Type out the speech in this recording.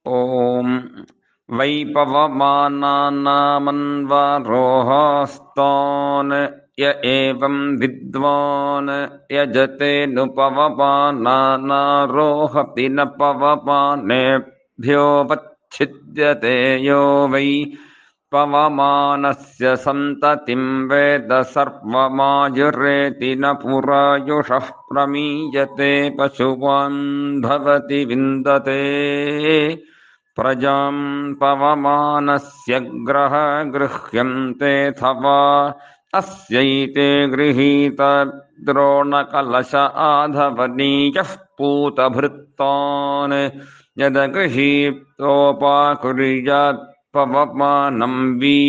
ॐ वै पवमानानामन्वरोहास्तान् य एवं विद्वान् यजतेऽनुपवमानानारोहति न पवमानेभ्योऽवच्छिद्यते यो वै पवमानस्य सन्ततिं वेद सर्वमायुरेति न पुरायुषः प्रमीयते पशुवान् भवति विन्दते प्रजां पवमानस्य ग्रह गृह्यन्तेऽथवा अस्यैते गृहीत द्रोणकलश आधवनीयः पूतभृत्तान् यदगृहीतोपाकुर्यात् पवमानं वि